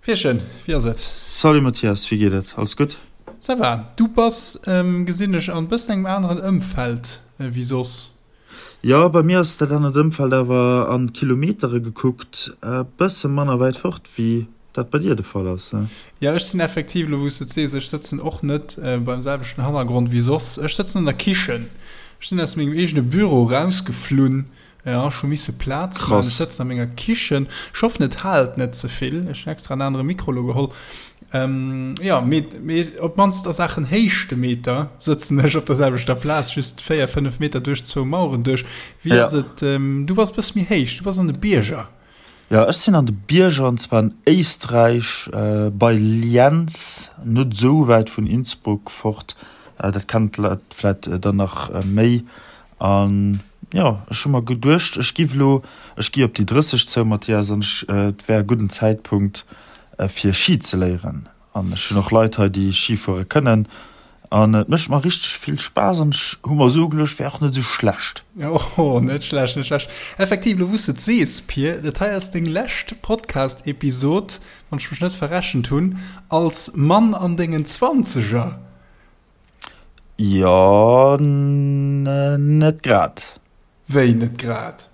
Pierchen, wéi ass et? Salut Mathias, wéi geet et? Alles gutt? Ça va. Du bass, gesinn ech, an bëssen engem aneren Ëmfeld wéi soss. Jo, bei mir ass dat anert Ëmfeld awer an Kilometere gekuckt e bësse manner wäit fort wéi dat bei dir de Fall ass. Jo, ech sinn effektiv, elo wou s de et sees, ech sëtzen och net beim selwechten Hannergrond wéi soss. Ech sëtzen an der Kichen. Ech sinn aus mengem eegene Büro rausgeflunn Ja, ech hu misse Plaz man. Ech sëtzen a menger Kichen. Ech hoffen, et haalt net ze vill. Ech hunn extra en anere Mikro lo geholl. Ähm, ja, mee, mee op d'mannst a Saachen Héichtemeter sëtzen ech op der selwechter Plaz, just 4, 5 Meter duerch zwou Maueren duerch. Wéi ass et? Ähm, du bass e bësse méi héich, du bass an de Bierger. Jo, ech sinn an de Bierger, an zwar an Éisträich, bei Lienz, net esou wäit vun Innsbruck fort. Dat kennen d'Leit vläit dann nach méi. An jo, ech hu mer geduecht, ech giff elo, ech gi op déi 30 zou, Mathias, an ech, et wär e gudden Zäitpunkt, fir Ski ze léieren. An ech hunn och Leit hei, déi Ski fuere kënnen. An et mécht mer richteg vill Spaass an ech hu mer esou ugeluecht, wär och net esou schlecht. Oh, net schlecht, net schlecht. Effektiv, elo wou s de et sees, Pir, dat hei ass deng lescht Podcast-Episod, wann ech mech net verrechent hunn, als Mann an dengen Zwanzeger. Jo, net grad. Wéi net grad?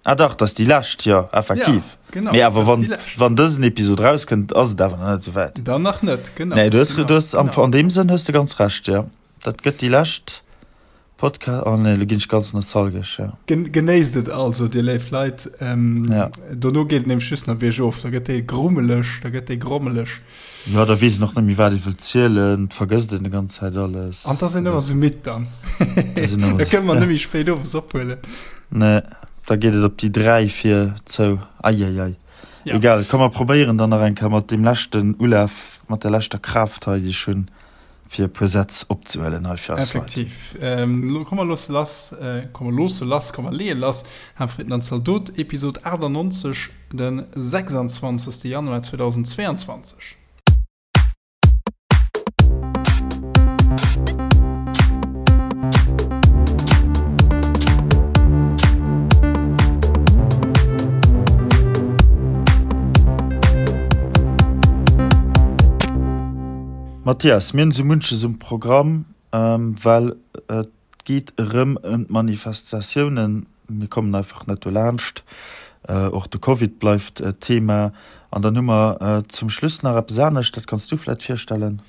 Ah dach, dat ass déi lescht, jo, effektiv. Ja, genau, Mee awer wann, wann dësen Episod rauskënnt, ass et awer nach net esou wäit. Dann nach net, genau. Nee, du hues, genau, du hues, am, genau. an deem Sënn hues de ganz Recht, jo. Dat gëtt déi lescht Podcast, oh nee, lo ginn ech ganz nostalgesch, jo. Gen, genéisst et also, dir léif Leit. Ähm, ja. Dono geet et nämlech just nach biergof, da gëtt dee grummeleg, da gëtt dee grommeleg. Jo, da weess een och net méi, wat ee wëllt zielen, et vergësst een déi ganz Zäit alles. An da sinn ëmmer sou midd dann. Da kënne mer net méi spéit owes ophuelen. Nee, da geet et op déi 3 vir zou. Eieiei. Ja. Egal, komm mer probéieren dann nach eng Kéier mat deem leschten Ulaf, mat der leschter Kraaft hei, déi ech hunn, fir e puer Sätz opzehuelen hei fir eis Leit. Effektiv. Ähm, komm mer loosse lass, komm mer loosse lass, komm mer leeë lass. Hamfritten an Zaldot, Episod 98. Den 26. Januar 2022. Mathias, mir hunn esou munches um Programm, well et geet erëm ëm d'Manifestatiounen. Mir kommen einfach net dolaanscht. Och de Covid bleift Thema. An dann hu mer zum Schluss nach eppes anescht, dat kanns du vläit virstellen.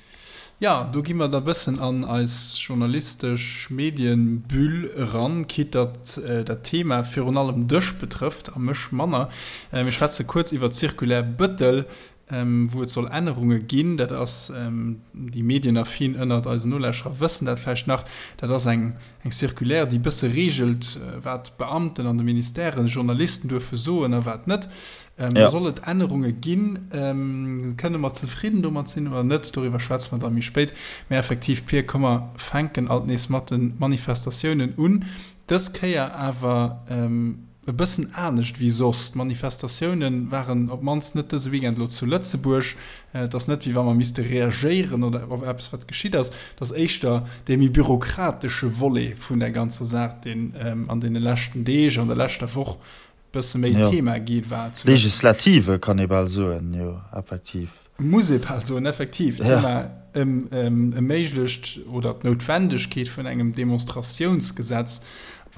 Jo, do gi mer da bëssen an eis journalistesch Medienbüll eran, quitte datt dat Thema virun allem dech betrëfft a mech manner. Mir schwätze kuerz iwwer d'Circulaire Bettel, wou et soll Ännerunge ginn, dat ass, déi Medienaffin ënnert eisen Nolauschterer wëssen dat vläicht nach, dat ass eng eng Circulaire, déi e bësse reegelt, wat d'Beamten an de Ministèren Journalisten duerfe soen a wat net. Do soll et Ännerunge ginn. Kënne mer zefridden domat sinn oder net? Doriwwer schwätze mer da méi spéit. Mä effektiv, Pir, komm mer fänken alt nees mat de Manifestatiounen un. Dës Kéier awer e bëssen anescht wéi soss. D'Manifestatioune waren op d'mannst net dëse Weekend elo zu Lëtzebuerg. Et ass net, wéi wa mer misste reagéieren oder op eppes, wat geschitt ass. Et ass éischter dee méi bürokratesche Volet vun der ganzer Saach, deen an deene leschten Deeg, an der leschter Woch e bësse méi Thema gi war. Legislative kann ee bal soen, jo, effektiv. Muss ee bal soen, effektiv, d'Thema ëm e méiglecht oder d'Noutwendegkeet vun engem Demonstratiounsgesetz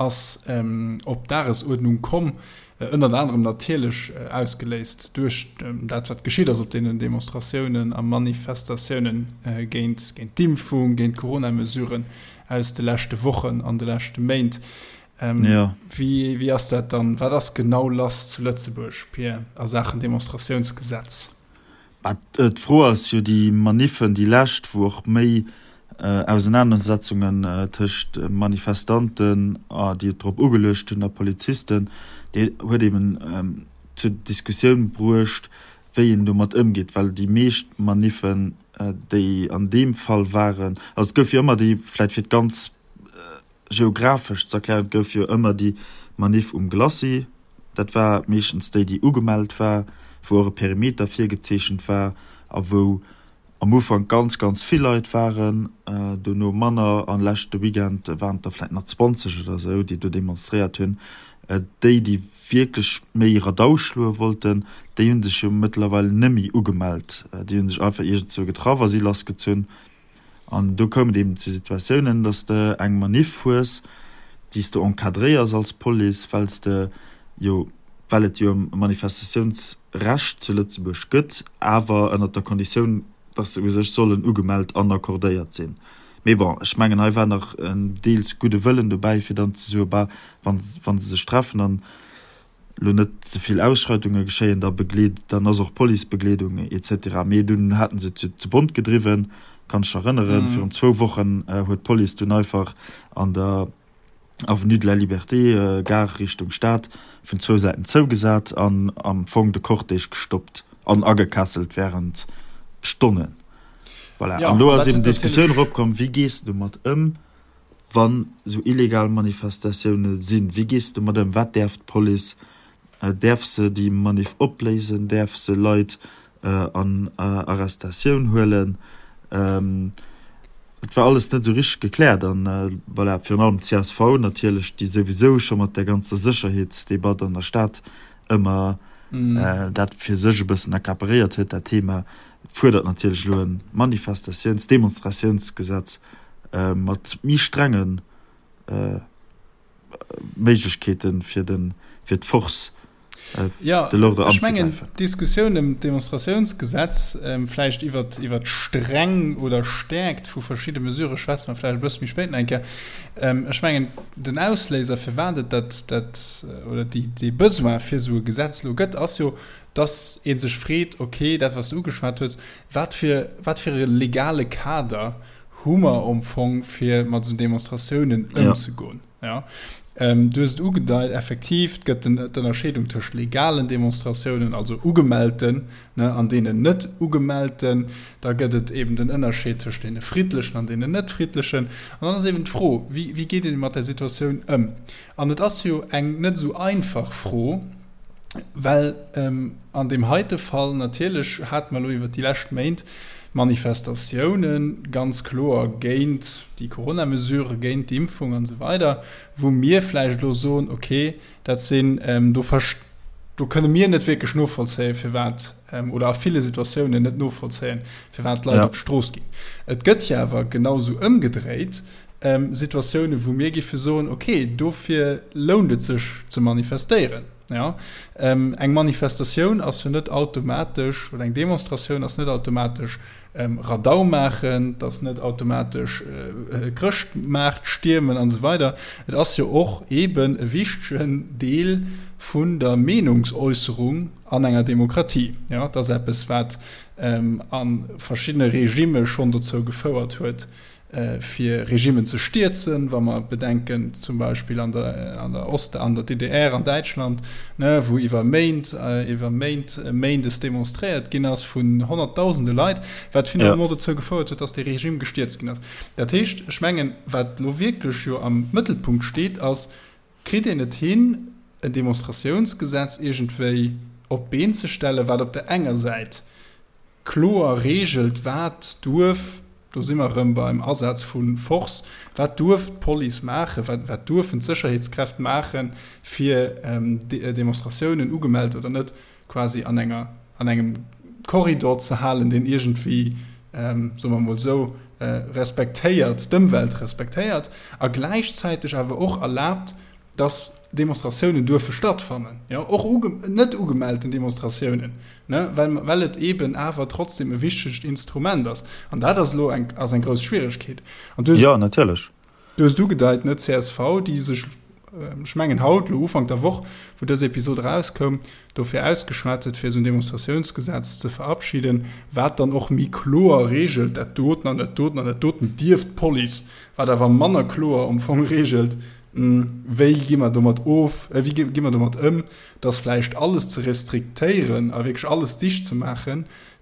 ass op d'Dagesuerdnung komm, ënnert anerem natierlech ausgeléist duerch dat, wat geschitt ass op deenen Demonstratiounen a Manifestatiounen géint d'Impfung, géint d'Coronamesuren aus de leschte Wochen an de leschte Méint. Wéi ass dat dann, wat ass genau lass zu Lëtzebuerg, Pir, a Saachen Demonstratiounsgesetz? Mä d'Fro ass jo, déi Maniffen, déi lescht, wou och méi Ausenanersetzungen tëscht Manifestanten, déi et drop ugeluecht hunn, a Polizisten, déi huet eben zur Diskussioun bruecht, wéi een domat ëmgeet, well déi meescht Maniffen, déi an deem Fall waren, also et gouf jo ëmmer déi, vläicht fir d'ganz geographesch ze erklären, et gouf jo ëmmer déi Maniff um Glacis, dat war meeschtens déi, déi ugemellt war, wou och e Perimeter virgezeechent war a wou am Ufank ganz, ganz vill Leit waren, dono manner an leschte Weekend waren et der vläicht nach 20 oder esou, déi do demonstréiert hunn. Déi, déi wierklech méi Radau schloe wollten, déi hu sech jo mëttlerweil nëmmi ugemellt. Déi hu sech einfach iergendzwou getraff a si lassgezunn. An do koum et eben zu Situatiounen, dass de eng Maniff hues, déi s de encadréiers als Police, well s de jo, well et jo e Manifestatiounsrecht zu Lëtzebuerg gëtt, awer ënnert der Konditioun, dass se u sech sollen ugemellt an accordéiert sinn. Mee bon, ech mengen, hei war nach en deels gudde Wëllen dobäi, fir dann ze soen, bah, wa se sech treffen an elo net ze vill Ausschreitunge geschéien, da begleet, dann ass och Policebegleedung et cetera. Mee dunn haten se et jo zu bont gedriwwen, kann ech erënneren, virun zwou Wochen huet d'Police dunn einfach an der Avenue de la Liberté, Gare Richtung Stad, vun zwou Säiten zougesat an am Fong de Cortège gestoppt an agekesselt wärend Stonnen. Voilà. An elo ass eben d'Diskussioun eropkomm, wéi gees de domat ëm, wann esou illegal Manifestatioune sinn? Wéi gees de domat ëm? Wat däerf d'Police? Däerf se déi Maniff opléisen? Däerf se Leit an Arrestatioun huelen? Et war alles net esou richteg gekläert. An voilà, virun allem d'CSV natierlech, déi souwisou scho mat där ganzer Sécherheetsdebatt an der Stad ëmmer dat fir sech e bëssen accaparéiert huet, dat Thema, fuerdert natierlech elo e Manifestatiouns-, Demonstratiounsgesetz mat méi strenge Méiglechkeete fir de fir d'Force de l'ordre anzegräifen. Ech mengen, d'Diskussioun ëm d'Demonstratiounsgesetz, vläicht iwwer iwwer d'Streng oder Stäerkt vu verschidde Mesurë schwätze mer vläicht e bësse méi spéit nach eng Kéier. Ech mengen, den Ausléiser, firwat et dat dat oder déi dee Besoin fir esou e Gesetz elo gëtt, ass jo, dass ee sech freet, okay, dat wat s de ugeschwat hues, wat fir wat fir e legale Kader hu mer am Fong, fir mat esou Demonstratiounen ëmzegoen. Ja. Ähm, du hues et ugedeit, effektiv, et gëtt d'Ënnerscheedung tëscht legalen Demonstratiounen, also ugemellten, ne, an deenen net ugemellten. Da gëtt et eben den Ënnerscheed tëscht deene friddlechen an deenen net friddlechen. An dann ass eben d'Fro, wéi, wéi geet een mat där Situatioun ëm? An et ass jo eng net esou einfach Fro, Well an deem heite Fall natierlech hate mer elo iwwert déi lescht Méint Manifestatioune ganz kloer géint déi Coronamesurë, géint d'Impfung an esou weider, wou mir vläicht elo soen, okay, dat sinn, do do kënne mir net wierklech novollzéien, firwat, oder a ville Situatiounen net novollzéien, firwat d'Leit op d'Strooss ginn. Et gëtt jo awer genausou ëmgedréit Situatiounen, wou mir géife soen, okay, dofir lount et sech ze manifestéieren. Ja, eng Manifestatioun ass jo net automatesch, oder eng Demonstratioun ass net automatesch Radau maachen, et ass net automatesch Chrëschtmaart stiermen an esou weider. Et ass jo och eeben e wichtegen Deel vun der Meenungsäusserung an enger Demokratie. Ja, et ass eppes, wat a verschiddene Regimme schonn dozou gefouert huet, fir Regimmen ze stierzen, wa mer bedenken zum Beispill an der, an der Ost-, an der DDR, an Däitschland, ne, wou iwwer Méint, iwwer Méint méindes demonstréiert ginn ass vun honnertdausende Leit, wat finalement dozou gefouert huet, dass dee Regime gestierzt ginn ass. Dat heescht, ech mengen, wat elo wierklech jo am Mëttelpunkt steet, ass, Kritt een et hin, en Demonstratiounsgesetz iergendwéi op d'Been ze stellen, wat op der enger Säit kloer reegelt, wat duerf, do si mer erëm beim Asaz vu Force, wat duerf d'Police maachen, wat, wat duerfen d'Sécherheetskräft maachen, fir Demonstratiounen, ugemellt oder net, quasi an enger, an engem Korridor ze halen, deen iergendwéi, soe mer emol esou, respektéiert, d'Ëmwelt respektéiert a gläichzäiteg awer och erlaabt, dass Demonstratiounen duerfe stattfannen, jo, och uge, net ugemellten Demonstratiounen, ne, well, well et eeben awer trotzdem e wichtegt Instrument ass. An dat ass elo eng, ass eng grouss Schwieregkeet. An du hues. Jo, natierlech. Du hues et ugedeit, ne, csv, déi sech, ech mengen haut, elo Ufank der Woch, wou dës Episod erauskoum, dofir ausgeschwat huet, fir esou en Demonstratiounsgesetz ze verabschieden, wat dann och méi kloer reegelt, dat doten an dat doten an dat doten dierf d'Police, wat awer manner kloer am Fong reegelt, Wéi gi mer domat of, wéi gi mer domat ëm, datt vläicht alles ze restriktéieren a wierklech alles dicht ze maachen,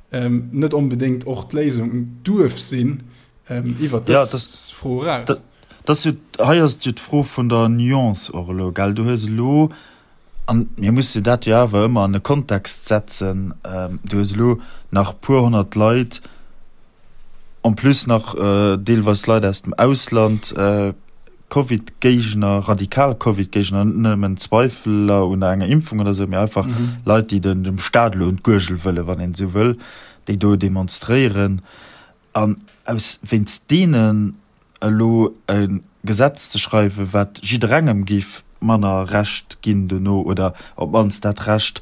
net onbedéngt och d'Léisung duerf sinn iwwert dës Fro eraus? Dat ass jo, hei ass et jo d'Fro vun der Nuance och elo, gell? Du hues elo, an mir musse dat jo awer ëmmer an e Kontext setzen, du hues elo nach e puer honnert Leit, en plus nach deelweis Leit aus dem Ausland. Covid-Géigner, radikal Covid-Géigner, net nëmmen Zweifeler un enger Impfung oder sou, mee einfach Leit, déi den, dem Staat elo un d'Guergel wëllen, wann een esou wëll, déi do demonstréieren. An aus, wéinst deenen elo e Gesetz ze schreiwen, wat jidderengem géif manner Recht ginn dono oder op d'mannst dat Recht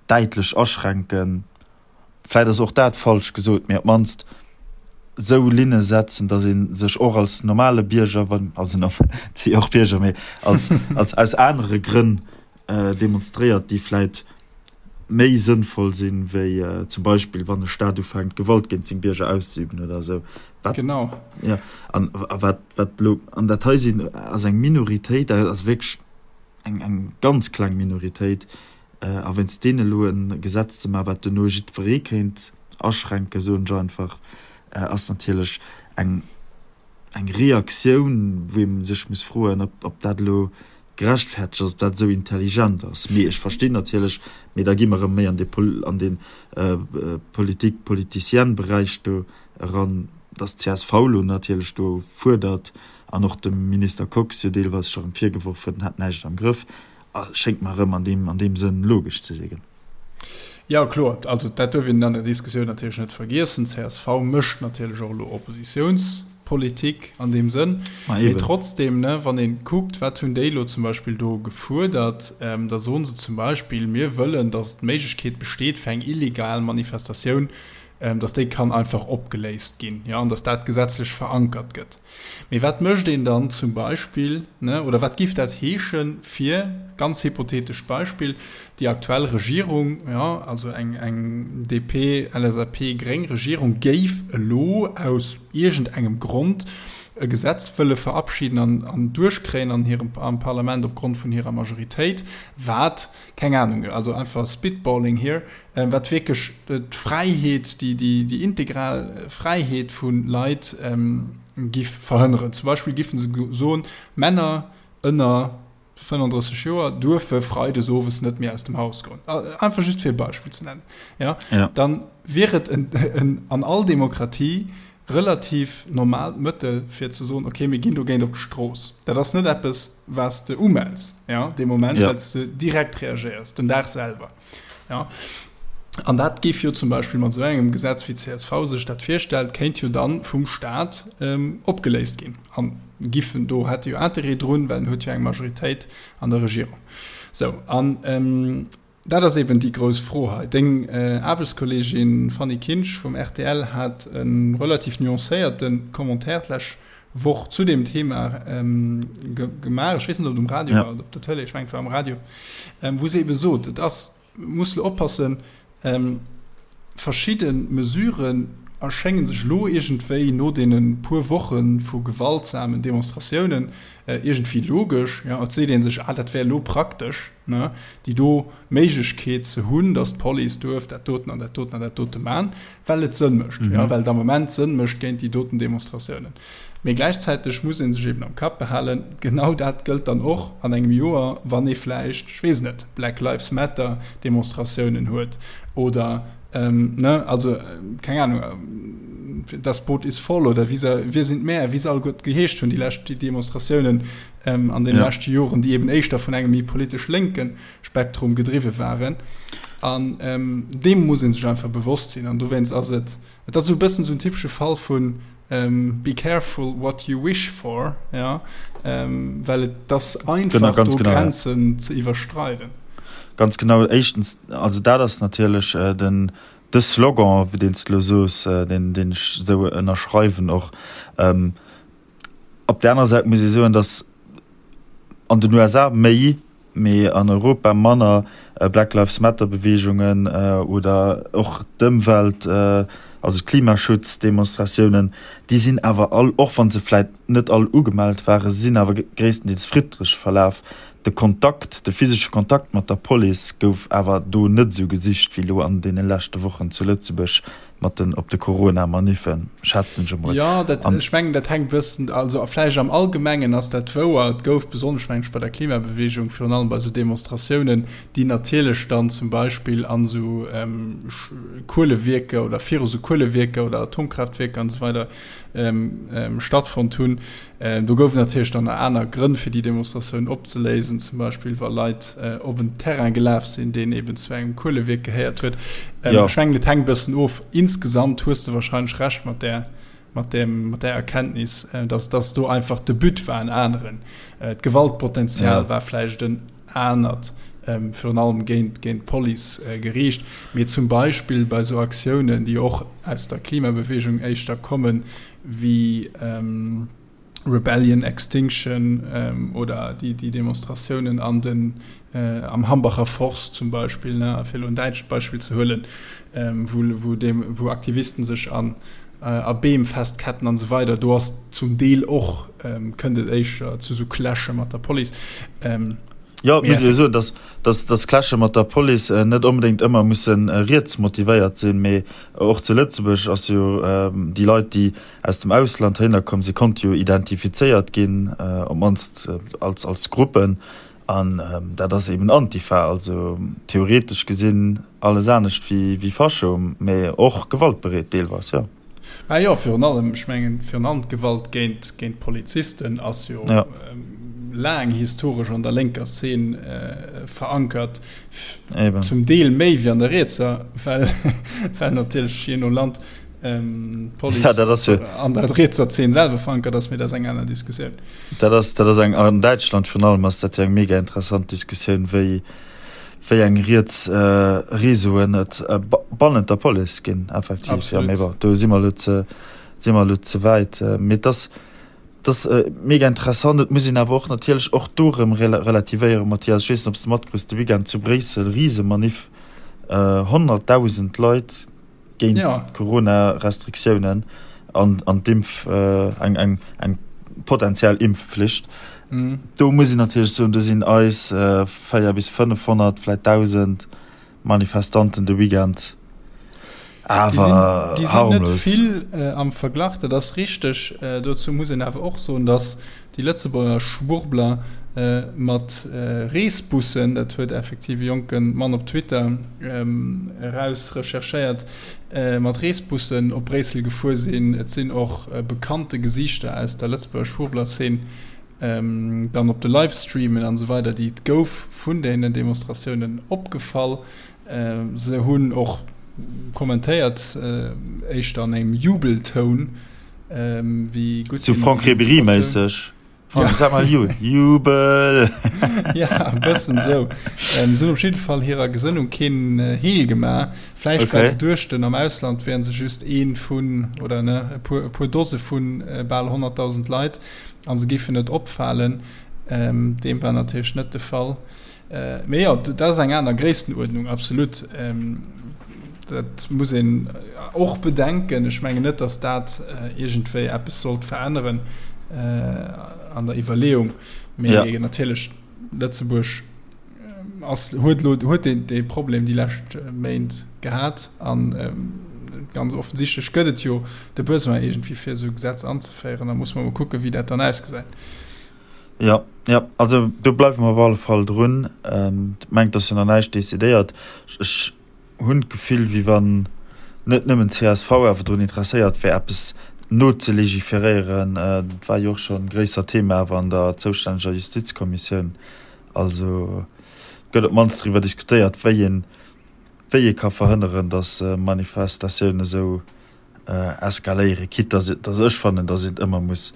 däitlech aschränken, vläit ass och dat falsch gesot, mee op d'mannst esou Linne setzen, datt ee sech och als normale Bierger, wann, also et si jo och Bierger, mee als, als aus anere Grënn demonstréiert, déi vläit méi sënnvoll sinn, wéi zum Beispill wann e Staat ufänkt, Gewalt géint seng Bierger auszeüben oder esou. Wat, genau. Ja, an wat, wat elo, an dat hei sinn, ass eng Minoritéit, dat ass wierklech eng, eng ganz kleng Minoritéit, A wéinst deenen elo e Gesetz ze maachen, wat duerno jiddweree kéint aschränken, soen ech einfach, ass natierlech eng Reaktioun, wou ee sech muss froen, ob dat elo gerechtfertegt ass, ob dat esou intelligent ass. Mee ech verstinn natierlech, mee da gi mer erëm méi an dee Politik-politicienne-Beräich do eran, datt d'CSV elo natierlech do fuerdert an och dem Minister Kox jo deelweis scho erëm virgeworf huet, en hätt näischt am Grëff. Schéngt mer erëm an deem, an deem Sënn logesch ze sinn. Jo, kloer. Also dat duerf een an der Diskussioun natierlech net vergiessen. Csv mécht natierlech och elo Oppositiounspolitik an deem Sënn. Ma Mee trotzdem, ne, wann ee kuckt, wat hunn déi elo zum Beispill do gefuerdert, da soen se zum Beispill, mir wëllen, datt d'Méiglechkeet besteet fir eng illegal Manifestatioun, datt déi kann einfach opgeléist ginn, jo, an datt dat gesetzlech verankert gëtt. Mee wat mécht een dann zum Beispill, ne, oder wat giff dat heeschen fir, ganz hypothetescht Beispill, déi aktuell Regierung, jo, also eng, eng DP, LSAP, gréng Regierung géif elo aus iergendengem Grond e Gesetz wëlle verabschieden an, an duerchkréien an hirem, am Parlament opgrond vun hirer Majoritéit, wat, keng Ahnung, also einfach spitballing here, wat wierklech d'Fräiheet, déi integral Fräiheet vu Leit giff verhënneren. Zum Beispill giffen se soen, Männer ënner 35 Joer duerfe freides owes net méi aus dem Haus goen. Einfach just fir e Beispill ze nennen. Ja? Dann wier et an all Demokratie relativ normaalt Mëttel fir ze soen, okay, mir ginn dogéint op d'Strooss. Dat ass net eppes, wat s de umells, ja, dee Moment, well s de direkt reagéiers, den Dag selwer. Ja. An dat géif jo zum Beispill mat esou engem Gesetz, wéi csv sech dat virstellt, kéint jo dann vum Staat ähm, opgeléist ginn. An giffen do hätte jo Interêt drun, well en huet jo eng Majoritéit an der Regierung. Sou, an ähm, dat ass eben déi grouss Fro hei. Deng äh, Aarbechtskolleegin Fanny Kinsch vum rtl hat e relativ nuancéierte Commentaire d'lech Woch zu deem Thema ähm, ge gemaach. Ech weess net, ob et um Radio ja. war oder op der Tëlee, ech mengen, et war um Radio, ähm, wou se ebe sot, et ass, muss lo oppassen, ähm, verschidde Mesuren erschéngen sech lo iergendwéi no deene puer Woche vu gewaltsamen Demonstratiounen äh, iergendwéi logesch. Ja, et seet ee sech, ah, dat wär lo praktesch, ne, déi do Méiglechkeet ze hunn, datt d'Police duerf dat doten an dat doten an dat dote man, well et Sënn mécht, mhm. ja, well et am Moment Sënn mécht géint déi doten Demonstratiounen. Mee gläichzäiteg muss ee sech eben am Kapp behalen, genau dat gëllt dann och an engem Joer, wann ee vläicht, ech weess net, Black Lives Matter Demonstratiounen huet oder ähm, ne, also keng Ahnung, das Boot ist voll oder wie se, wir sind mehr, wie se all gutt geheescht hunn, déi lescht déi Demonstratiounen ähm, an den ja. leschte Joren, déi eben éischter vun engem méi politesch lénken Spektrum gedriwwe waren. An ähm, deem muss een sech einfach bewosst sinn. An dowéinst ass et, et ass esou e bëssen esou en typesche Fall vun ähm, be careful what you wish for, ja, ähm, well et ass einfach genau, ganz do genau, Grenzen ja. ze iwwerstreiden. Ganz genau, éischtens, also dat ass natierlech äh, den de Slogan, wéi deen s de lo soos, äh, deen, deen ech esou ënnerschreiwen och. Ähm, Op där anerer Säit muss ee soen, datt an den USA méi, mee an Europa manner Black Lives Matter Beweegungen oder och d'Ëmwelt, also d'Klimaschutzdemonstratiounen, déi sinn awer all, och wa se vläit net all ugemellt waren, se sinn awer gréisstendeels friddlech verlaf. De Kontakt, de physesche Kontakt mat der Police gouf awer do net esou gesicht wéi elo an deene leschte Wochen zu Lëtzebuerg. mat den op de Corona-Maniffen, schätzen ech emol. Jo, dat, ech mengen, dat hänkt e bëssen, also vläicht am Allgemengen ass dat wouer. Et gouf besonnesch, mengen ech, bei der Klimabewegung, virun allem bei esou Demonstratiounen, déi natierlech. natierlech dann zum Beispill an esou Kuelewierker oder viru sou Kuelewierker oder Atomkraaftwierker an esou weider stattfonnt hunn. Do gouf et natierlech dann nach aner Grënn, fir déi Demonstratioun opzeléisen, zum Beispill wa Leit op en Terrain gelaf sinn, deen eben zu engem Kuelewierk gehéiert huet. Ech mengen, et hänkt e bëssen of. Insgesamt hues de wahrscheinlech Recht mat där mat dem, mat där Erkenntnis, dass, dass do einfach de But war en aneren. D'Gewaltpotenzial ja. war vläicht en anert, ähm, virun allem géint, géint d'Police äh, geriicht. Mee zum Beispill bei sou Aktiounen, déi och aus der Klimabewegung éischter kommen, wéi ähm, Rebellion Extinction ähm, oder déi, déi Demonstratiounen an den, äh, am Hambacher Forst zum Beispill, ne, fir elo en däitscht Beispill ze huelen, ähm, wou, wou, dem, wou Aktivisten sech an, äh, a Beem festketten an esou weider, do ass zum Deel och, ähm, kënnt et éischter zu sou Clashe mat der Police. Ähm, Jo, et muss ee jo soen, dass, dass, dass Clashe mat der Police net onbedéngt ëmmer musse riets motivéiert sinn, mee och zu Lëtzebuerg ass jo déi Leit, déi aus dem Ausland heihinner komm sinn, konnte jo identifizéiert ginn, op d'mannst als, als Gruppen. An dat ass eben Antifa, also theoretesch gesinn alles anescht wéi, wéi Fascho, mee och gewaltbereet deelweis, jo. Mä jo, virun allem, ech mengen, virun allem d'Gewalt géint, géint Polizisten ass jo ja. laang historesch an der lénker Szene äh, verankert. Eben. Zum Deel méi wéi an der rietser, well, well natierlech je no Land ähm, Police ja, dat ass jo. an der rietser Szene selwer verankert ass, mee dat ass eng aner Diskussioun. Dat ass, dat ass eng, an Däitschland virun allem ass dat jo eng mega interessant Diskussioun, wéi, wéi eng riets Réseauen et bannent der Police ginn, effektiv. Jo, mee bon, do si mer elo ze, si mer elo ze wäit. Mee et ass, et ass mega interessant. Et muss een awer och natierlech och do erëm relativéieren, Mathias. Ech weess net, ob s de matkriss, de Weekend zu Bréissel, Risemaniff, 100.000 Leit géint d'Corona-Restriktiounen an an d'Impf, eng eng eng potentiell Impfflicht. Do muss een natierlech soen, do sinn eis 4 bis 500, vläit 1.000 Manifestanten de Weekend awer harmlos. Déi sinn net vill am Verglach, dat ass richteg. Dozou muss een awer och soen, datt déi Lëtzebuerger Schwurbler mat Reesbussen, dat huet effektiv e jonke Mann op Twitter eraus recherchéiert, mat Reesbussen op Bréissel gefuer sinn. Et sinn och bekannte Gesiichter aus der Lëtzebuerger Schwurbler-Szene dann op de Livestreamen an esou weider, déi et gouf vun deenen Demonstratiounen, opgefall. Se hunn och kommentéiert, éischter an engem Jubeltoun, wéi gutt Sou Franck Ribéry-méisseg. Ja. Sag mal Jubel! Ja, e bëssen esou. Se hunn op jidde Fall hirer Gesënnung keen Heel gemaach. Vläicht okay. well se duechten, am Ausland wären se just ee vun, oder ne, e puer, e puer Dose vu bal 100.000 Leit a se géifen net opfalen. Deem war natierlech net de Fall. Mee jo, dat ass eng aner Gréisstenuerdnung, absolut. Dat muss een och bedenken. Ech mengen net, datt dat iergendwéi eppes sollt veränneren an der Iwwerleeung. Mee ja. natierlech Lëtzebuerg ass, huet lo, huet dee, dee Problem déi lescht Méint gehat an ganz offensichtlech gëtt et jo de Besoin iergendwéi fir esou e Gesetz anzeféieren. Da muss mer mol kucken, wéi dat dann ausgesäit. Jo, jo, also do bleiwe mer op alle Fall drun. Ech mengen, et ass jo nach näischt decidéiert. Ech hunn d'Gefill, wéi wann net nëmmen csv awer drun interesséiert wär, eppes nozelégiféréieren. Dat war jo och scho e gréissert Thema awer an der zoustänneger Justizkommissioun. Also et gëtt op d'mannst driwwer diskutéiert, wéi een, wéi ee ka verhënneren, datt Manifestatiounen esou eskaléieren, quitte dass, dass ech fannen, dass een et ëmmer muss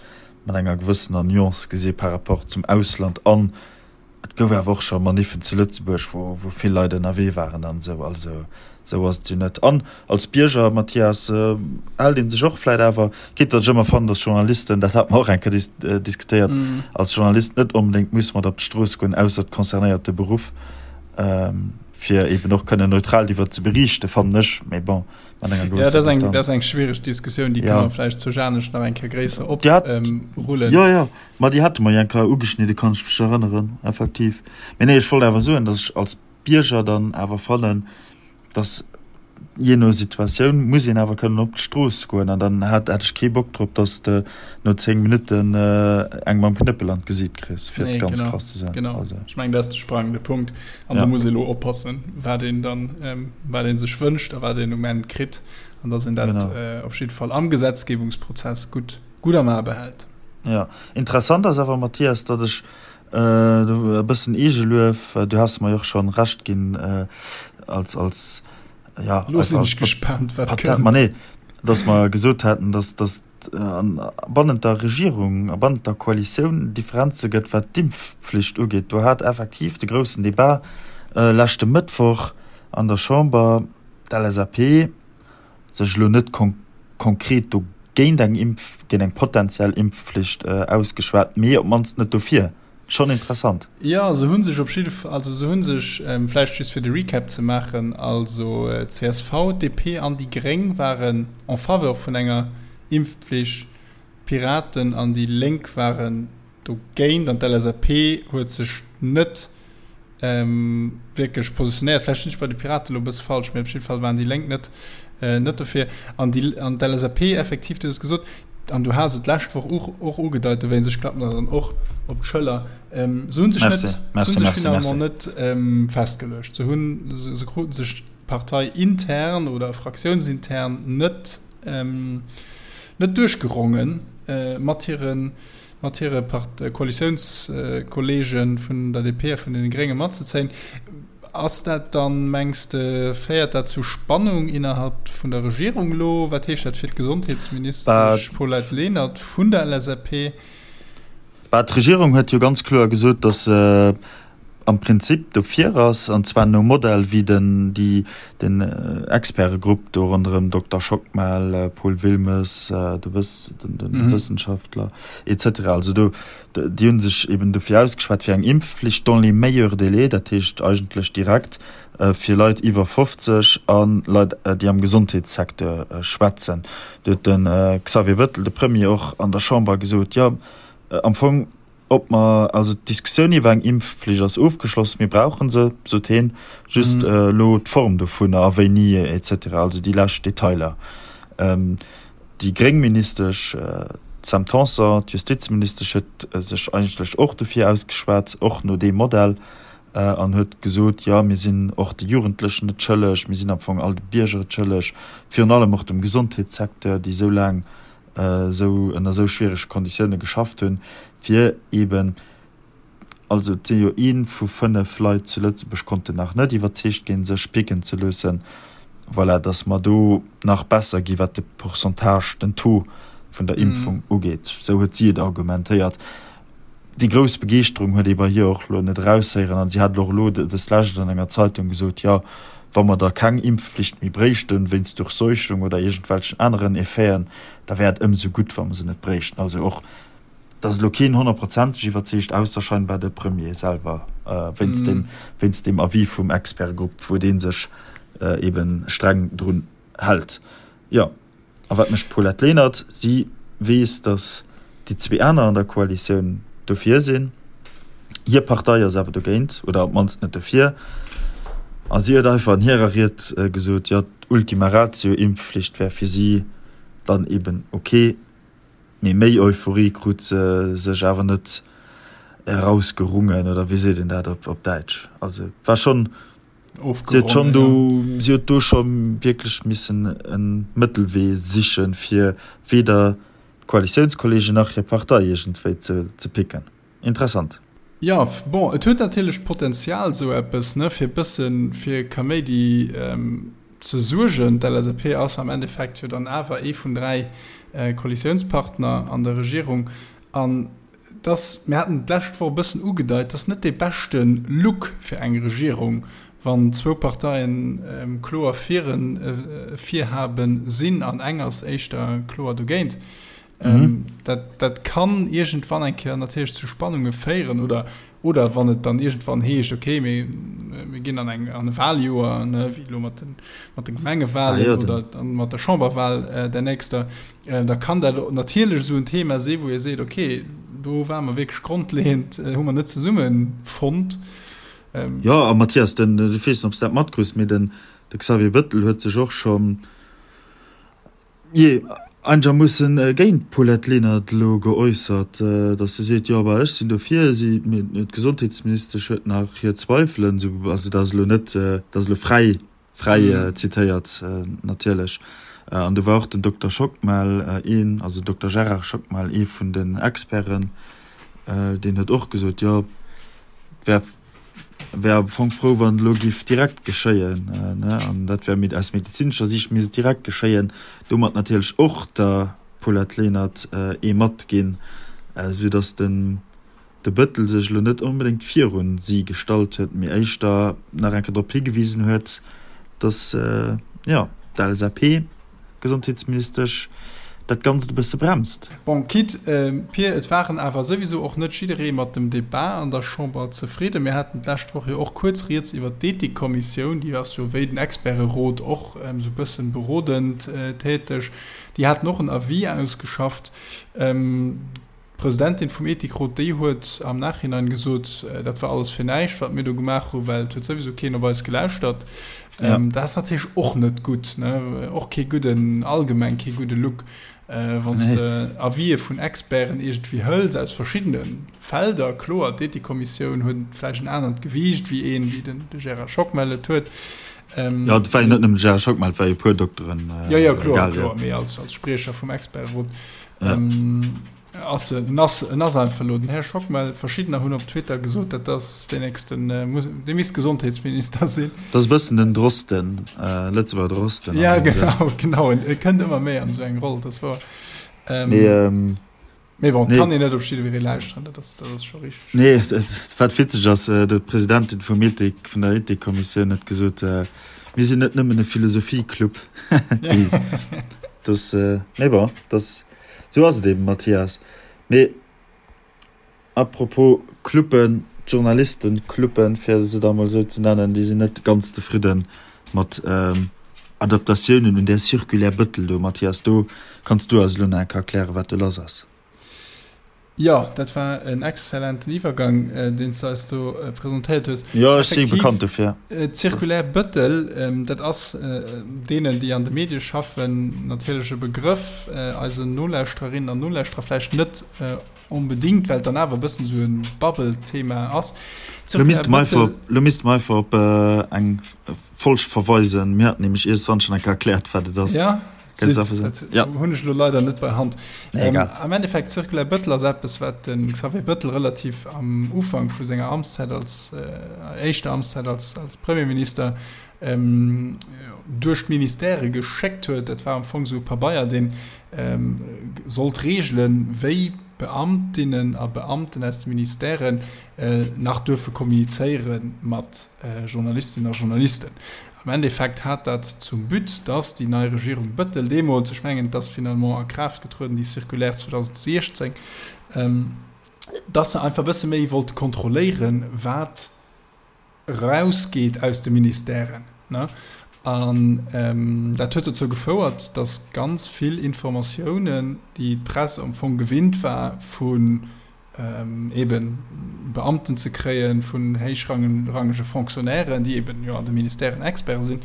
mat enger gewëssener Nuance gesi par rapport zum Ausland. An et gouf awer och scho Maniffen zu Lëtzebuerg, wou, wou vill Leit ënnerwee waren an esou. Also esou ass et jo net. An als Bierger, Mathias, hält ee sech och vläicht awer, quitte datt ech ëmmer fannen, dass Journalisten, dat hate mer och eng Kéier dis, diskutéiert, als Journalist net onbedéngt muss mat op d'Strooss goen, ausser et concernéiert de Beruff, fir eben och kënnen neutral driwwer ze beriichten, fannen ech. Mee bon. Mat enger gewësser ja, dat ass eng, dat ass eng schwiereg Diskussioun, déi ja. kann man vläicht zu Janesch nach eng Kéier gréisser op ähm, rullen. Ja, ja. Ma déi hate mer jo eng Kéier ugeschnidde, kann ech mech erënneren, effektiv. Mee nee, ech wollt awer soen, dass ech als Bierger dann awer fannen, dass. Jee no Situatioun muss een awer kënnen op d'Strooss goen an dann hat hätt ech kee Bock drop, dass de no 10 Minutten eng mam Knëppel an d'Gesiit kriss, fir et ganz krass ze soen. Genau, ech mengen dat ass de sprangende Punkt an do muss ee elo oppassen, wat een dann, wat ee sech wënscht a wat een um Enn kritt an dass een dat op jidde Fall am Gesetzgebungsprozess gutt, gutt am A behält. Jo, interessant ass awer, Mathias, datt ech e bëssen Eegeluef, du has mer jo och schonn Recht ginn als, als, ja, Lo sinn ech gespaant, wat kënnt. Ma nee, datt mer gesot haten, datt, datt bannent der Regierung a bannent der Koalitioun Differenze gëtt, wat d'Impfflicht ugeet. Do hat effektiv de groussen Debat leschte Mëttwoch an der Chamber d'LSAP sech elo net konkret do géint eng Impf, géint eng potentiell Impfflicht ausgeschwat, mee op d'mannst net dofir. Schonn interessant. Jo, se hu sech op jidde Fall, also se hu sech, vläicht just fir de Recap ze maachen, also csv, DP an déi Gréng waren en faveur vun enger Impfpflicht, d'Piraten an déi Lénk waren dogéint an d'LSAP huet sech net wierklech positionéiert. Vläicht sinn ech bei de Piraten elo e bësse falsch, mee op jidde Fall waren déi Lénk net, net dofir. An déi, an d'LSAP effektiv, du hues et gesot, an du has et d'lescht Woch och, och ugedeit, dowéinst, ech klappen der dann och op d'Schëller, se hu sech net, se hu sech finalement net festgeluecht. Se hunn, se kruten sech parteiintern oder fraktiounsintern net, net duerchgerongen mat hiren, mat hire Koalitiounskolleege vun der DP a vun deene Grénge matzezéien. Ass dat dann, mengs de, féiert dat zu Spannung innerhalb vun der Regierung elo? Wat heescht dat fir d'Gesondheetsministesch Paulette Lenert vun der LSAP? Bah, d'Regierung huet jo ganz kloer gesot, datt se am Prinzip dofir ass, an zwar nom Modell wéi den, déi, den Expertegrupp do ronderëm Dokter Schockmel, Paul Wilmes, de Wëss, den, den Wëssenschaftler et cetera. Also do, déi hu sech eben dofir ausgeschwat fir eng Impfflicht dans les meilleurs délais, dat heescht eigentlech direkt fir Leit iwwer 50 a Leit, déi am Gesondheetssecteur schwätzen. Do huet de Xavier Bettel, de Premier, och an der Chamber gesot, jo am Fong, Ob mer, also d'Diskussioun iwwer eng Impfflicht ass ofgeschloss, mir brauche se, sot hien, just elo d'Form dovunner a wéini et cetera, also déi lescht Detailer. Déi gréng Ministesch Sam Tanson, d'Justizministesch, huet sech eigentlech och dofir ausgeschwat, och no deem Modell, an huet gesot, jo mir sinn och de Jugendlechen et schëlleg, mir sinn am Fong all de Bierger et schëlleg, virun allem och dem Gesondheetssecteur, déi esou laang esou ënner esou schwierege Konditioune geschafft hunn, fir eeben, also et si jo ee vu 5 Leit zu Lëtzebuerg konnten nach net iwwerzeegt ginn, sech picken ze loossen, voilà, datt mer do nach besser gi wat de Pourcentage, den Taux vun der Impfung ugeet. Esou huet si et argumentéiert. Déi grouss Begeeschterung huet ee bei hir och elo net eraushéieren an si hat och elo dës Lescht an enger Zeitung gesot, jo, wa mer da keng Impfflicht méi bréichten, wéinst Durchseuchung oder iergendwelchen aneren Effeten, da wär et ëmsou gutt, wa mer se net bréichten. Also och, et ass elo keen honnertprozenteg iwwerzeegt, ausser scheinbar de Premier selwer, wéinst deem, wéinst deem Avis vum Expertgrupp, wou dee sech eebe streng drun hält. Jo. A wat mécht d'Paulette Lenert? Si weess, datt déi zwee aner an der Koalitioun dofir sinn. Hir Partei ass awer dogéint oder op d'mannst net dofir. A si huet einfach an hirer Ried gesot, jo, d'Ultima Ratio, Impfflicht wär fir si dann eben ok. Mee méi Euphorie krut se sech awer net erausgerungen, oder wéi seet een dat op Däitsch? Also et war schonn. Si huet schonn do, si huet do scho wierklech missen e Mëttelwee sichen, fir weder d'Koalitiounskolleegen nach hir Partei iergendwéi ze picken. Interessant. Jo, bon, et huet natierlech d'Potenzial, esou eppes, ne, fir e bësse fir Kaméidi ze suergen. D'LSAP ass am Endeffekt jo dann awer ee vun 3 Koalitiounspartner an der Regierung. An dass, mir haten et d'lescht Woch e bëssen ugedeit, dass net dee beschte Look fir eng Regierung, wann zwou Parteien kloer fir e Virhabe sinn an eng ass éischter kloer dogéint. Dat, dat kann iergendwann eng Kéier natierlech zu Spannunge féieren oder, oder wann et dann iergendwann heescht, okay, mir, mir ginn an eng, an e Wahljoer, ne, wéi elo mat den, mat de Gemengewahlen oder mat der Chamberwahl der nächster, Da kann dat natierlech esou en Thema si wou ee seet, okay, do ware mer wierklech grondleeënd, hu mer net zesumme fonnt. Jo, a Mathias, den, ech weess net, ob s de dat matkriss, mee den, De Xavier Bëttel huet sech och schonn, jee, einegermoossen géint d'Paulette Lenert elo geäussert, datt se seet, jo bah ech sinn dofir, si, mee d'Gesondheetsministesch huet nach hir Zweifelen. Esou, also dat ass elo net, dat ass elo fräi, fräi zitéiert natierlech. An do war och den Dokter Schockmel een, also den Dokter Gérard Schockmel, ee vun den Experten, deen huet och gesot, jo et wär, wär am Fong frou, wann et elo géif direkt geschéien, ne, an dat wär aus medezinescher Siicht misst et direkt geschéien. Domat natierlech och der Paulette Lenert ee matginn, soudatt den de Bëttel sech elo net onbedéngt virun si gestallt huet, mee éischter nach eng Kéier drop higewisen huet, datt, jo, d'LSAP-Gesondheetsministesch dat Ganzt e bësse bremst. Bon, quitte, Pir, et waren awer souwisou och net jidderee mat dem Debat an der Chamber zefridden. Mir haten d'lescht Woch jo och kuerz rieds iwwert d'Ethikkommissioun, déi ass jo wéi den Experterot och esou e bëssen berodend täteg. Déi haten och en Avis ausgeschafft. D'Presidentin vum Ethikrot, déi huet am Nachhinein gesot, dat war alles fir näischt, wat mir do gemaach hunn, well et huet souwisou keen op eis gelauschtert. Ja. Dat ass natierlech och net gutt, ne? Och kee gudden, allgemeng kee gudde Look, wann s de Avisë vun Experten iergendwéi hëls aus verschiddene Felder. Kloer, d'Ethikkommissioun huet vläicht en anert Gewiicht wéi een, wéi den de Gérard Schockmel et huet. Jo, et war jo net nëmmen de Gérard Schockmel, et war jo e puer Dokteren. Jo, jo, kloer, kloer, mee als Spriecher vum Experterot. Ja. Ähm, ass, en ass, en ass einfach elo den Här Schockmel. Verschiddener hunn op Twitter gesot, dat ass deen nächsten, äh, muss, dee misst Gesondheetsminister sinn. Dat ass e bëssen den Drosten, äh, Lëtzebuerger Drosten. Ja, genau, genau. En, e kënnt ëmmer méi an esou eng Roll, dat ass wouer. Ähm, Mee, ähm, mee bon, nee. kann een net op jiddweree lauschteren, dat ass, dat ass scho richteg. Nee, wat witzeg ass, äh, d'Presidentin vum Ethik, vun der Ethikkommissioun huet gesot, äh, mir sinn net nëmmen e Philosophieclub. Das, äh, mee bon, das, sou ass et eben, Mathias. Mee apropos Cluben, d'Journalistencluben, fir se da mol esou ze nennen, déi sinn net ganz zefridde mat ähm, Adaptatiounen un där Circulaire Bëttel do. Mathias, do kanns du eis elo nach eng Kéier erklären, wat do lass ass. Jo, dat war en exzellenten Iwwergang, deen s de eis do presentéiert hues. Jo, ech si bekannt dofir. D'Circulaire Bëttel, dat ass deenen, déi an de Medie schaffen, natierlech e Begrëff, eisen Nolauschtererinnen an Nolauschterer vläicht net onbedéngt, well et dann awer e bëssen esou e Bubble-Thema ass. Lo misste mer einfach, lo misste mer einfach op eng Folg verweisen. Mir haten nämlech iergendwann schonn eng Kéier erkläert, wat et ass. Ja. Ja. Hunn ech lo leider net bei Hand. Nee, ähm, am Endeffekt Circulaire Bëttel ass eppes, wat den Xavier Bëttel relativ am Ufank vu senger Amtszäit als äh, éischter Amtszäit als, als Premierminister ähm, duerch d'Ministèrë geschéckt huet. Dat war am Fong sou e Pabeier, deen ähm, sollt reegelen, wéi Beamtinnen a Beamten aus de Ministèren äh, nach duerfe kommunizéiere mat äh, Journalistinnen a Journalisten. Am Endeffekt hat dat zum But, dass déi nei Regierung Bëttel deemools, ech mengen, et ass finalement a Kraaft getrueden, déi Circulaire 2016, dass se einfach e bësse méi wollte kontrolléieren, wat erausgeet aus de Ministèren. An dat huet dozou gefouert, dass ganz vill Informatiounen, déi d'Press am Fong gewinnt war vu eben Beamten ze kréien, vun héichrangege Fonctionnairen, déi eben jo an de Ministèren Experte sinn,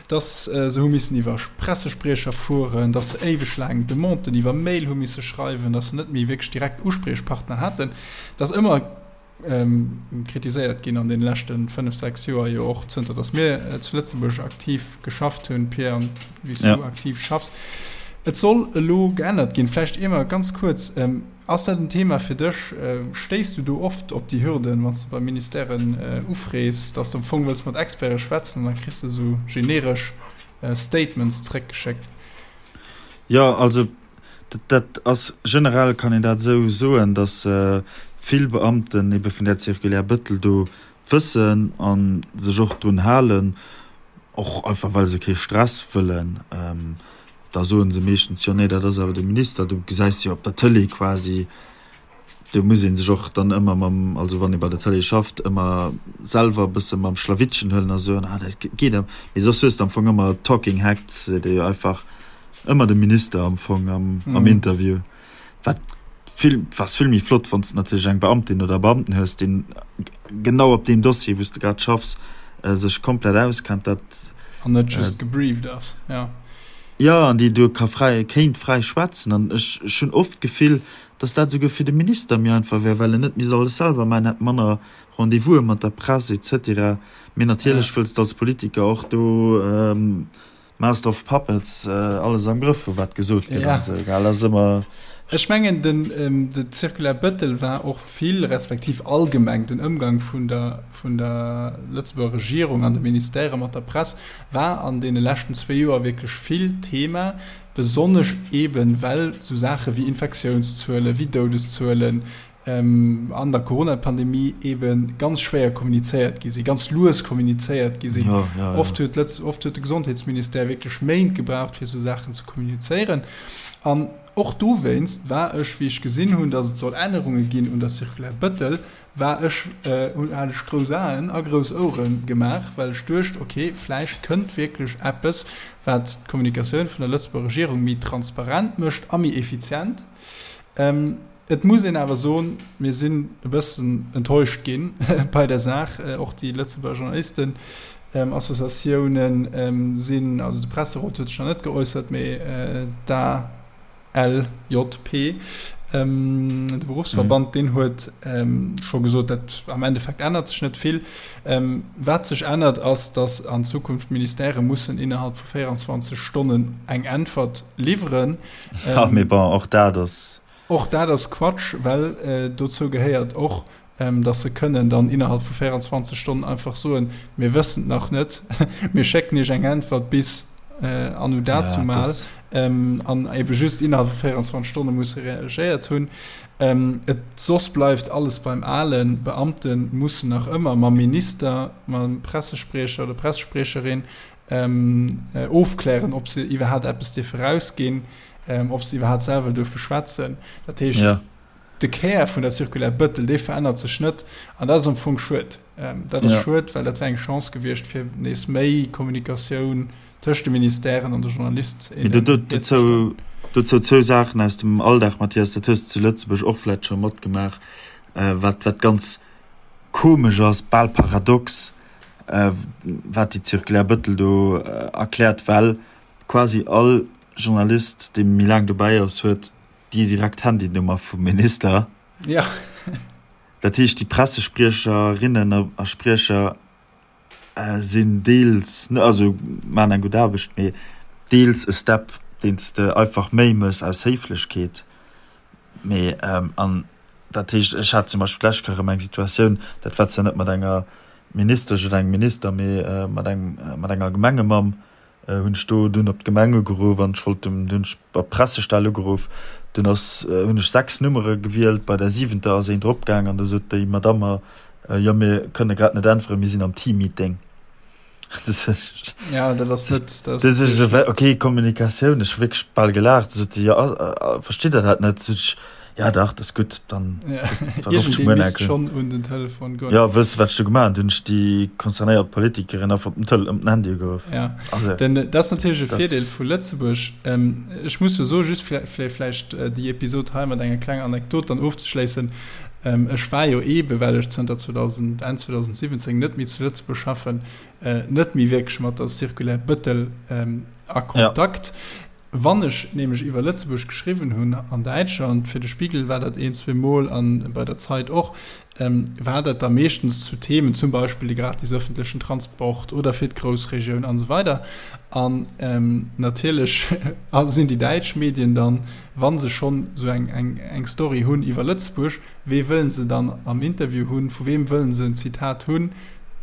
dass se hu missen iwwer Pressespriecher fueren, dass se éiweg laang Demanden iwwer Mail hu misse schreiwen, dass se net méi wierklech direkt Uspriechpartner haten. Dat ass ëmmer kritiséiert ginn an deene leschte 5, 6 Joer, jo och zënter dass mir zu Lëtzebuerg aktiv geschafft hunn, Pierre, an wéi s du aktiv schaffs. Et soll elo geännert ginn. Vläicht ier mer ganz kuerz, Ass dat en Thema fir dech? Stéiss du do oft op déi Hürden, wann s de bei Ministèren ufrees, dass de am Fong wëlls mat Experte schwätzen an da kriss de esou generesch Statements zréckgeschéckt? Jo, also dat ass generell, kann een dat esou soen, dass vill Beamten ebe vun där Circulaire Bëttel do wëssen a sech och drun halen, och einfach well se kee Stress wëllen. Da soe se meeschtens, jo nee, dat ass awer de Minister. Du gesäis jo op der Tëlee quasi, do muss ee sech och dann ëmmer mam, also wann ee bei der Tëlee schafft, ëmmer selwer e bësse mam Schlawittchen huelen a soen, ah dat geet awer. Mee soss hues de am Fong ëmmer Talking Heads, déi einfach ëmmer de Minister am Fong am Interview. Wat vill, ass vill méi flott, wann s de natierlech eng Beamtin oder e Beamten hues, deen genau op deem Dossier, wou s de grad schaffs, sech komplett auskennt. Dat. An net just gebrieft ass, jo. Jo, an déi do ka fräi, kéint fräi schwätzen. An ech, ech hunn oft d'Gefill, datt dat esouguer fir de Minister méi einfach wär, well en net misst alles selwer maachen, hätt manner Rendez-vouse mat der Press et cetera. Mee natierlech wëlls de als Politiker och do Master of Puppets alles am Grëff hu wat gesot gëtt an esou, gell? Ass ëmmer. Ech mengen den de Circulaire Bettel war och vill, respektiv allgemeng den Ëmgang vun der vun der Lëtzebuerger Regierung an de Ministèrë mat der Press war an deene leschten zwéi Joer wierklech vill Thema, besonnesch eeben well esou Saache wéi Infektiounszuelen, wéi Doudeszuelen, an der Corona-Pandemie ebe ganz schwéier kommunizéiert gi sinn, ganz lues kommunizéiert gi sinn. Ja, ja, ja. Oft huet Lëtz, oft huet de Gesondheetsministère wierklech Méint gebraucht, fir esou Saachen ze kommunizéieren. An och dowéinst war ech, wéi ech gesinn hunn, datt et soll Ännerunge ginn un der Circulaire Bettel, war ech, hunn, hat ech grouss Aen a grouss Ouere gemaach, well ech duecht, okay, vläicht kënnt wierklech eppes, wat d'Kommunikatioun vun der Lëtzebuerger Regierung méi transparent mécht a méi effizient. Et muss een awer soen, mir sinn e bëssen enttäuscht gi bei der Saach. Och déi Lëtzebuerger Journalistenassociatiounen sinn, also de Presserot huet sech nach net geäussert, mee d'ALJP, de Beruffsverband, deen huet scho gesot, dat am Endeffekt ännert sech net vill. Wat sech ännert, ass, datt an Zukunft d'Ministèrë mussen innerhalb vu 24 Stonnen eng Äntwert liwweren. Ja, mee bon, och dat ass. Och dat ass Quatsch, well dozou gehéiert och, dass se kënnen dann innerhalb vu 24 Stonnen einfach soen, Mir wëssen et nach net, mir schécken Iech eng Äntwert bis anno dazumal, an ebe just innerhalb vu 24 Stonne musse reagéiert hunn. Et soss bleift alles beim Alen. D'Beamte mussen nach ëmmer mam Minister, mam Pressespriecher oder Pressespriecherin ofklären, ob se iwwerhaapt eppes dierfe rausginn, ob se iwwerhaapt selwer duerfe schwätzen. Dat heescht, ja. de Kär vun der Circulaire Bëttel, dee verännert sech net. An dat ass am Fong schued. Dat ass ja. schued, well dat wär eng Chance gewiescht, fir nees méi Kommunikatioun tëscht de Ministèren an de Journalist. Dozou, dozou zwou Saachen aus dem Alldag, Mathias, dat hues de zu Lëtzebuerg och vläicht scho matgemaach, wat, wat ganz komesch ass, bal paradox, wat déi Circulaire Bettel do erkläert, well quasi all Journalist, dee méi laang dobäi ass, huet déi direkt Handynummer vum Minister. Ja. Dat heescht, déi Pressespriecherinnen a Spriecher sinn deels, also maachen eng gutt Aarbecht, mee deels e Step, deen s de einfach méi méchs aus Héiflechkeet. Mee an dat heescht, ech hat zum Beispill d'lescht Kéier erëm eng Situatioun, dat war zwar net mat enger Ministesch oder engem Minister, mee mat engem, mat enger Gemengemamm hunn ech do dunn op d'Gemeng ugeruff an ech wollt dem, dunn hunn ech op d'Pressestell ugeruff, dunn ass, hunn ech 6 Nummere gewielt, bei der siwenter ass een drop gaang an da sot déi Madamm mer, jo mir kënne grad net äntweren, mir sinn am Teammeeting. Ja, dat ass net. Dat ass okay, Kommunikatioun, ech hu wierklech bal gelaacht. Sot si, ja, versteet Der dat net? Sot ech, ja dach, dat ass gutt, dann da rufft ech muer nach misst schonn un den Telefon goen. Ja, wëss de, wat ech du gemaach hunn? Dunn hunn ech déi concernéiert Politikerin einfach op den Tel op den Handy ugeruff. Ja, also, denn dat ass natierlech e Virdeel vu Lëtzebuerg. Ech muss jo soen, just fir vläicht déi Episod hei mat enger klenger Anekdot dann ofzeschléissen, Ech war jo eebe well ech zënter 2000, Enn 2017 net méi zu Lëtzebuerg schaffen, net méi wierklech mat der Circulaire Bettel a Kontakt. Wann ech nämlech iwwer Lëtzebuerg geschriwwen hunn an Däitschland, fir de Spiegel war dat een, zweemol an bei der Zeit och, war dat da meeschtens zu Themen, zum Beispill de gratis öffentlechen Transport oder fir d'Groussregioun an esou weider. An natierlech sinn déi däitsch Medien dann, wa se schonn esou eng, eng, eng Story hunn iwwer Lëtzebuerg, wee wëllen se dann am Interview hunn, vu weem wëllen se en Zitat hunn?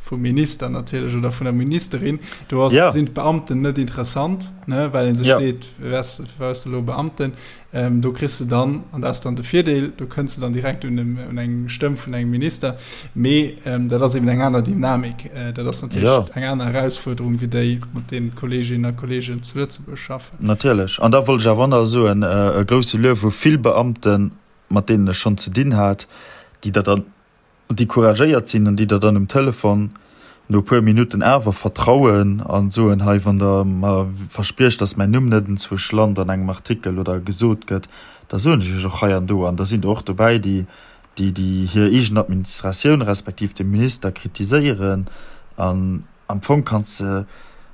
Vum Minister natierlech oder vun der Ministerin. Do ass, ja. sinn d'Beamten net interessant, ne, well ee sech ja. seet, wes, wes elo Beamten? Ähm, do kriss de dann, an dat ass dann de Virdeel, do kënns de dann direkt un, dem, un eng Stëmm vun engem Minister. Mee ähm, dat ass eben eng aner Dynamik. Äh, dat ass natierlech ja. eng aner Erausfuerderung wéi déi, mat deenen d'Kolleeginnen a Kolleegen zu Lëtzebuerg schaffen. Natierlech. An da wollt ech awer och nach soen, e grousse Luef u vill Beamten, mat deenen ech schonn ze dinn hat, déi der dann, déi couragéiert sinn an déi der dann um Telefon no e puer Minutten awer vertrauen a soen, hei, wann Der mer verspriecht, datt mäin Numm net enzwousch lant an engem Artikel oder gesot gëtt, da soen ech Iech och hei an do. An da sinn der och dobäi, déi, déi hir eegen Administratioun respektiv de Minister kritiséieren. An am Fong kanns de.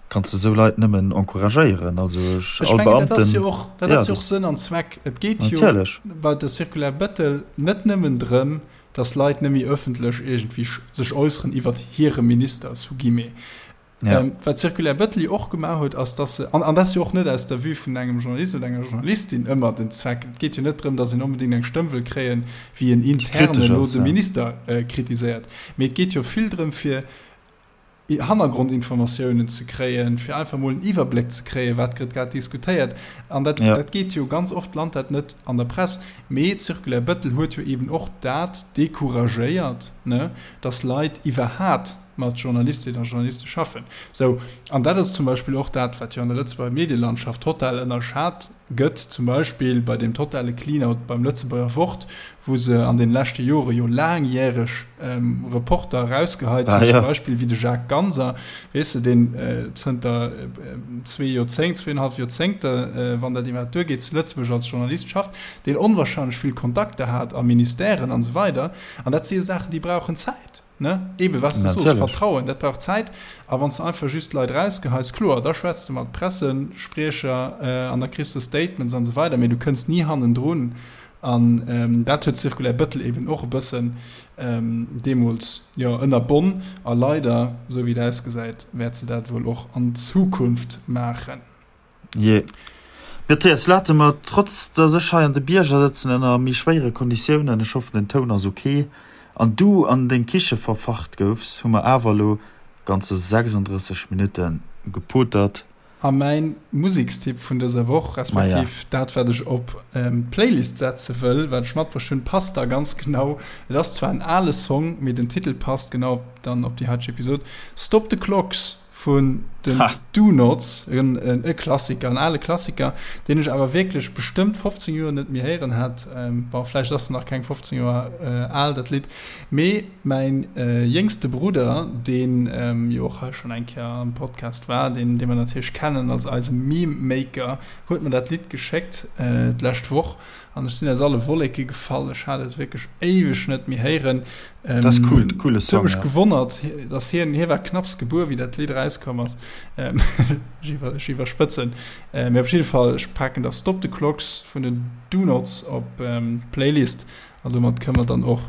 Kanns de sou Leit nëmmen encouragéieren. Also ech, all Beamten. Dat ass jo och, dat ass jo och Sënn an Zweck. Et geet jo bei der Circulaire Bettel net nëmmen drëm, datt Leit net méi ëffentlech iergendwéi sech äusseren iwwert hire Minister, sous guillemets. Ja. Ähm, wat d'Circulaire Bettel jo och gemaach huet, ass, datt se, an, an dat ass jo och net aus der Vue vun engem Journalist oder enger Journalistin ëmmer den Zweck, et geet jo net drëm, datt een onbedéngt eng Stëmm wëll kréien, wéi en intern elo de Minister äh, kritiséiert, mee et geet jo vill drëm, fir Hannergrondinformatiounen ze kréien, fir einfach mol en Iwwerbléck ze kréien, wat gëtt grad diskutéiert. An dat, ja. dat geet jo ganz oft, lant dat net an der Press. Mee d'Circulaire Bettel huet jo eben och dat decouragéiert, ne, dass Leit iwwerhat mat Journalistinnen a Journaliste schaffen. Sou, an dat ass zum Beispill och dat, wat jo an der Lëtzebuerger Medielandschaft total ënnerschat gëtt, zum Beispill bei deem totale Clean-out beim Lëtzebuerger Wort, wou se an den leschte Jore jo laangjäreg Reporter erausgeheit hunn, zum Beispill wéi de Jacques Ganser, weess de, deen zënter zwee Joerzéngt, zweeënhalf Joerzéngte, wann dat iwwerhaapt duergeet, zu Lëtzebuerg als Journalist schafft, deen onwahrscheinlech vill Kontakter hat a Ministèren an esou weider. An dat si jo Saachen, déi brauchen Zäit. Ne? Eben, was du soos, Vertrauen, dat brauch Zäit. A wann s de einfach just d'Leit erausgeheis, kloer, da schwätz de mat Pressespriecher an da kriss de Statements an esou weider, mee du kënns ni hannendrun. An dat huet d'Circulaire Bettel eben och e bëssen deemools, jo, ënnerbonn. A leider, esou wéi et ausgesäit, wäert se dat wuel och an Zukunft maachen. Jee. Mathias, late mer, trotz dass ech hei an de Bierger sëtzen ënner méi schwéiere Konditiounen, ech hoffen den Toun ass ok, an du an deng Kiche verfacht goufs, hu mer awer elo ganze 36 Minutte gepotert. A mäin Musekstipp vun dëser Woch, respektiv dat wat ech op d'Playlist setze wëll, wat ech matbruecht hunn, passt da ganz genau. Et ass zwar en ale Song, mee den Titel passt genau dann op déi haiteg Episod, Stop the Clocks vun den Donots, e Klassiker, en ale Klassiker, deen ech awer wierklech bestëmmt 15 Joer net méi héieren hat. Bon, vläicht ass en nach keng 15 Joer al, dat Lidd, mee mäin jéngste Brudder, deen jo och hei schonn eng Kéier am Podcast war, deen, dee mer natierlech kennen als eise Meme-Maker, huet mer dat Lidd geschéckt d'lescht Woch an ech sinn aus alle Wolleke gefall. Ech hat et wierklech éiweg net méi héieren. Ähm, das ist cool, coole Song. Huet mech gewonnert, dass hien, hie war knapps gebuer, wéi dat Lidd rauskomm ass. Ähm, ech iwwer, ech iwwerspëtzen. Äh, mee op jidde Fall, ech paken da Stop the Clocks vun den Donots op ähm, d'Playlist an domat kënne mer dann och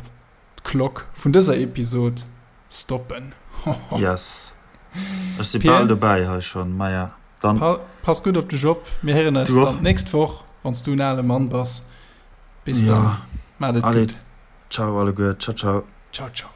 d'Klock vun dëser Episod stoppen. Yes. Ech si bal dobäi hei schonn, maja. Dann. Pa pass gutt op dech op. Mir héieren eis dann d'nächst Woch, wann s du en ale Mann bass. Bis dann. Maat et gutt. Ciao alleguer, ciao ciao. Ciao ciao.